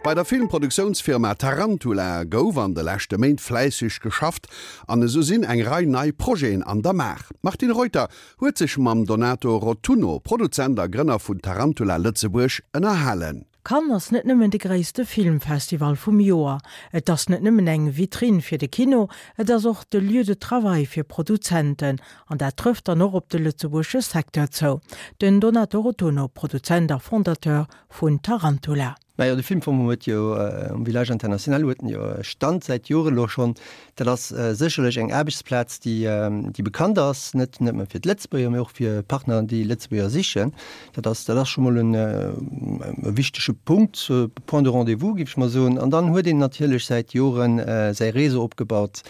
Bei der Filmproduktiounsfirma Tarantula gouf an de leschte Méint fläisseg geschafft an esou sinn eng Rei nei Projeten an der Maach. D'Martine Reuter huet sech mam Donato Rotunno, Produzent a Grënner vun Tarantula Lëtzebuerg, ënnerhalen. Cannes ass net nëmmen de gréisste Filmfestival vum Joer, et ass net nëmmen eng Vitrinn fir de Kino, et ass och de Lieu de travail fir Produzenten. An dat trëfft dann och op de lëtzebuergesche Secteur zou. Den Donato Rotunno, Produzent a Fondateur vun Tarantula. Majo, de Filmfong huet jo um Village International huet en jo e Stand säit Joren elo schonn. Dat ass sécherlech eng Aarbechtsplaz, déi, déi bekannt ass, net nëmme fir d'Lëtzebuerger, mee och fir Partner, déi Lëtzebuerger sichen. Dat ass, dat ass scho mol en e wichtege Punkt, Point de rendez-vous, géif ech mol soen. An dann huet een natierlech säit Joren säi Réseau opgebaut.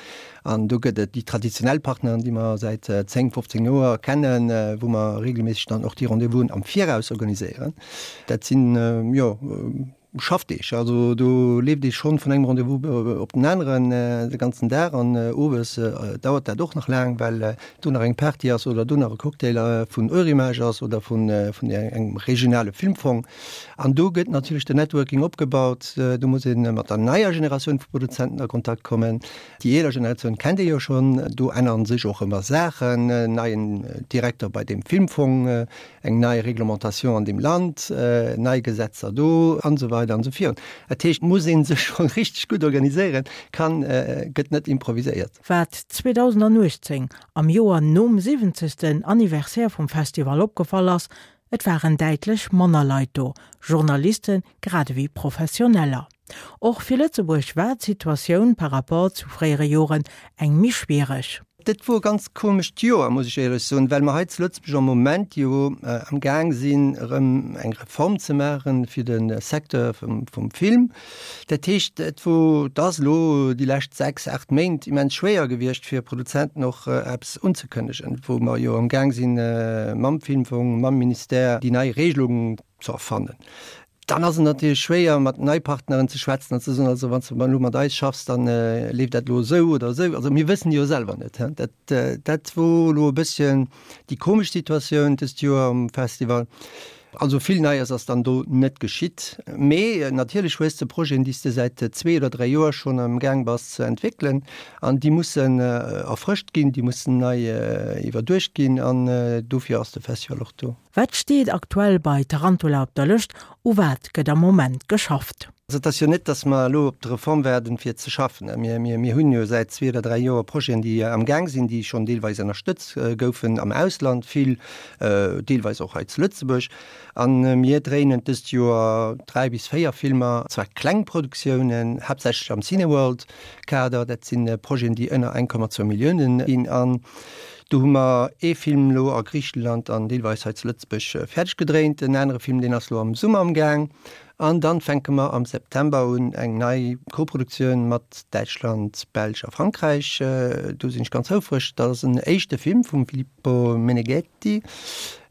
An do gëtt et déi traditionell Partneren, déi mer säit 10, 15 Joer kennen, wou mer regelméisseg dann och déi Rendez-vousen am Viraus organiséieren. Dat sinn, jo, Schaffdeeg. Also do leeft ee schonn vun engem Rendez-vous op den aneren de ganzen Dag an owes dauert dat och nach laang, well do nach eng Party ass oder do nach e Cocktail vun Eurimages ass oder vun engem regionale Filmfong. An do gëtt natierlech den Networking opgebaut. Do muss ee mat der neier Generatioun vu Produzenten a Kontakt kommen. Déi eeler Generatioun kennt ee jo schonn. Do änneren sech och ëmmer Saachen, neien Direkter bei deem Filmfong, eng nei Réglementation an deem Land, nei Gesetzer do an esou weider an esou virun. Dat heescht, et muss ee sech scho richteg gutt organiséieren, kann, gëtt net improviséiert. Wat 2018, am Joer nom siwwenzegsten Anniversaire vum Festival opgefall ass, Et waren däitlech manner Leit do, Journaliste grad ewéi Professioneller. Och fir Lëtzebuerg war d'Situatioun par rapport zu fréiere Joren eng méi schwiereg. Dat wor e ganz komescht Joer, muss ech éierlech soen, well mer hei zu Lëtzebuerg am Moment jo am Gaang sinn, erëm eng Reform ze maache fir de Secteur vum Film. Dat heescht, et wor, et ass elo déi lescht 6, 8 Méint immens schwéier gewiescht fir Produzenten och eppes unzekënnegen, wou mer jo am Gaang sinn, mam Filmfong, mam Ministère déi nei Regelung ze erfannen. Dann ass et natierlech schwéier, mat nei Partneren ze schwätzen an ze soen, also wann s de elo mat eis schaffs, da leeft dat elo esou oder esou. Also mir wëssen jo selwer net. Dat, dat wor elo e bësschen déi komesch Situatioun dëst Joer um Festival. Also vill Neies ass dann do net geschitt. Mee natierlech hues de Projeten, déi s de säit zwee oder dräi Joer schonn am Gaang bass ze entwéckelen an déi mussen erfrëscht ginn, déi mussen nei iwwerduecht ginn an dofir ass de Festival och do. Wat steet aktuell bei Tarantula op der Lëscht? U wat gëtt am Moment geschafft? Also et ass jo net, datt mer elo op d'Reform waarden, fir ze schaffen. Mir, mir, mir hunn jo säit zwee oder dräi Joer Projeten, déi am Gaang sinn, déi schonn deelweis ënnerstëtz goufen am Ausland, vill deelweis och hei zu Lëtzebuerg. A mir dréinen dëst Joer dräi bis véier Filmer, zwar kleng Produktiounen, haaptsächlech am Cineworld-Kader. Dat si Projeten, déi ënner 1,2 Milliounen ginn. An Do hu mer ee Film elo a Griichenland an deelweis hei zu Lëtzebuerg fäerdeg gedréint. En anere Film, deen ass elo am Summer am Gaang. An dann fänke mer am September un eng nei Koproduktioun mat Däitschland, Belsch a Frankräich. Do sinn ech ganz houfreg. Dat ass en éischte Film vum Filippo Meneghetti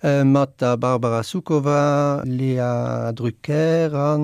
mat der Barbara Sukowa, Léa Drucker a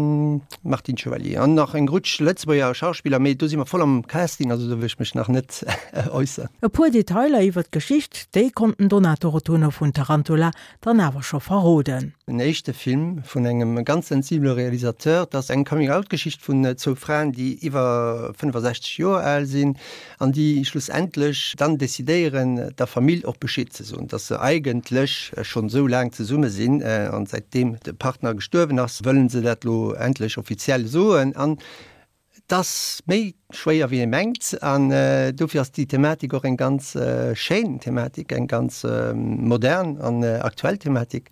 Martine Chevalier an nach eng Rutsch Lëtzebuerger Schauspiller. Mee do si mer voll am Casting, also do wëll ech mech nach net äusseren. E puer Detailer iwwer d'Geschicht, déi konnt den Donato Rotunno vun Tarantula dann awer scho verroden. En éischte Film vun engem ganz sensibele Realisateur. Et ass eng Coming-out-Geschicht vun zwou Fraen, déi iwwer 65 Joer al sinn an déi schlussendlech dann decidéieren, der Famill och Bescheed ze soen, dass se eigentlech schonn esou laang zesumme sinn an säitdeem de Partner gestuerwen ass, wëllen se dat elo endlech offiziell soen. An Et ass méi schwéier wéi ee mengt an dofir ass déi Thematik och eng ganz schéin Thematik, eng ganz modern an aktuell Thematik.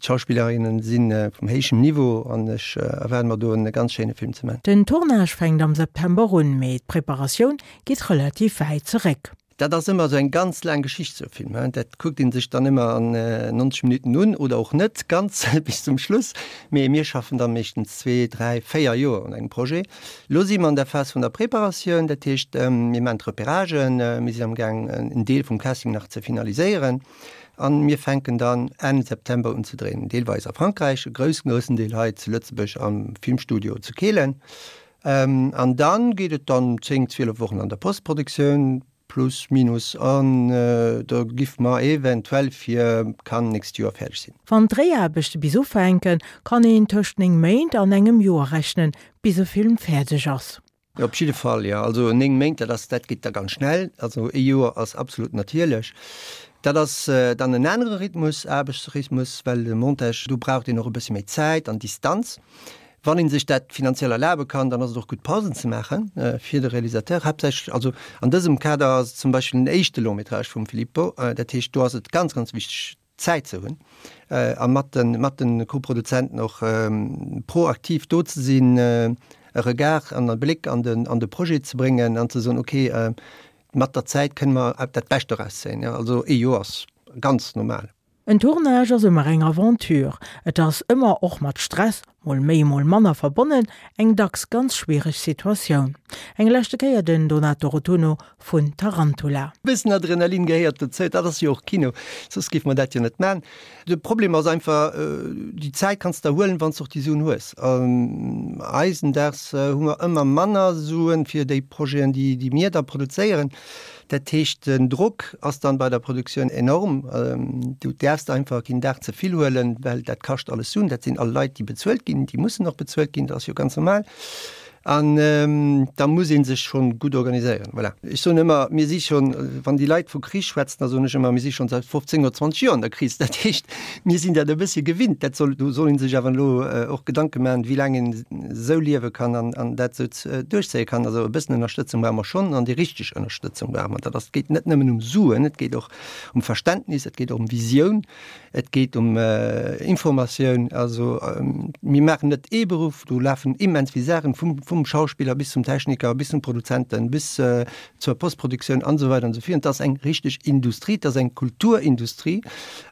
D'Schauspillerinnen si vum héijem Niveau an ech erwaarde mer do e ganz schéine Film ze man. Den Tournage fänkt am September un, mee d'Preparatioun geet relativ wäit zeréck. Dat ass ëmmer esou eng ganz laang Geschicht, esou e Film. Dat kuckt ee sech dann ëmmer an 90 Minutten un oder och net ganz bis zum Schluss. Mee mir schaffen da meeschtens zwee, dräi, véier Joer un engem Projet. Elo si mer an der Phas vun der Preparatioun, dat heescht, mir maachen d'Repéragen, mir sinn amgaang en Deel vum Casting nach ze finaliséieren a mir fänken dann Enn September un ze dréinen, deelweis a Frankräich, e groussen, groussen Deel hei zu Lëtzebuerg am Filmstudio zu Kehlen. An dann geet et dann 10, 12 Wochen an der Postproduktioun. Plus minus, an da giff mer eventuell fir Cannes nächst Joer fäerdeg sinn. Wann d'Dréiaarbechte bis ufänken, kann een tëscht 9 Méint an engem Joer rechnen, bis e Film fäerdeg ass. Op jidde Fall, jo. Also 9 Méint, dat ass, dat geet da ganz schnell. Also ee Joer ass absolut natierlech. Dat ass dann en anere Rhythmus, Aarbechtsrhythmus, well de Montage, do braucht een och e bëssi méi Zäit an Distanz. Wann ee sech dat finanziell erlabe kann, dann ass et och gutt Pausen ze maache fir de Realisateur haaptsächlech. Also an dësem Kader ass et zum Beispill den éischte Long-métrage vum Filippo. Dat heescht, do ass et ganz, ganz wichteg, Zäit ze hunn a mat de mat de Koproduzenten och proaktiv do ze sinn, e Regard an e Bléck an den an de Projet ze bréngen an ze soen, okay, mat der Zäit kënne mer dat Bescht doraus zéien. Also ee Joer ass ganz normal. En Tournage ass ëmmer eng Aventure. Et ass ëmmer och mat Stress, mol méi mol manner, verbonnen, eng dacks ganz schwiereg Situatioun. Eng leschte Kéier den Donato Rotunno vun Tarantula. E bëssen Adrenalin gehéiert dozou, dat ass jo och Kino, soss géife mer dat jo net man. De Problem ass einfach, déi Zäit kanns de der huelen, wann s de och déi Suen hues. Eisendags hu mer ëmmer manner Suen fir déi Projeten, déi mir da produzéieren. Dat heescht, den Drock ass dann bei der Produktioun enorm. Du däerfs einfach keen Dag ze vill huelen, well dat kascht alles Suen. Dat sinn all Leit, déi bezuelt ginn, déi mussen och bezuelt ginn, dat ass jo ganz normal. An da muss ee sech schonn gutt organiséieren. Voilà. Ech soen ëmmer, mir si schonn, wann déi Leit vu Kris schwätzen, da soen ech ëmmer, mir si schonn säit 15 oder 20 Joer an der Kris. Dat heescht, mir sinn dat e bëssche gewinnt. Dat soll, do soll ee sech awer elo och Gedanke maachen, wéi laang een esou liewe kann an, an dat esou duerchzéie kann. Also e bëssen Ënnerstëtzung brauche mer schonn an déi richteg Ënnerstëtzung brauche mer. Dat ass, et geet net nëmmen um Suen, et geet och um Verständnis, et geet och um Visioun, et geet um Informatioun. Also mir maachen net ee Beruff, do lafen immens vill Saachen, vum, vum Schauspiller bis zum Techniker, bis zum Produzenten, bis zur Postproduktioun an esou weider an esou virun. Et ass eng richteg Industrie, et ass eng Kulturindustrie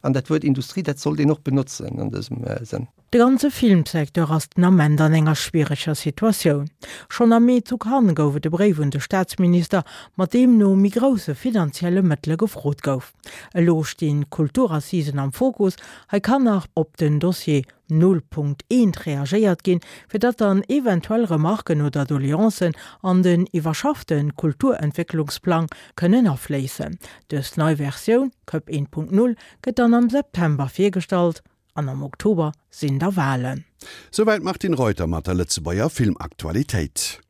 an dat Wuert Industrie, dat sollt een och benotzen an dësem Sënn. De ganze Filmsecteur ass den Ament an enger schwiereger Situatioun. Schonn am Mee zu Cannes gouf et e Bréif un de Staatsminister, mat deem no méi grousse finanzielle Mëttele gefrot gouf. Elo stinn d'Kulturassisen am Fokus. Hei kann nach op den Dossier Nullpunkt eent reagéiert ginn, fir datt dann eventuell Remarken oder Doleancen an den iwwerschaffte Kulturentwécklungsplang kënnen afléissen. Dës nei Versioun, Cup 1.0, gëtt dann am September virgestallt. An am Oktober sinn da Walen. Souwäit d'Martine Reuter mat der Lëtzebuerger Filmaktualitéit.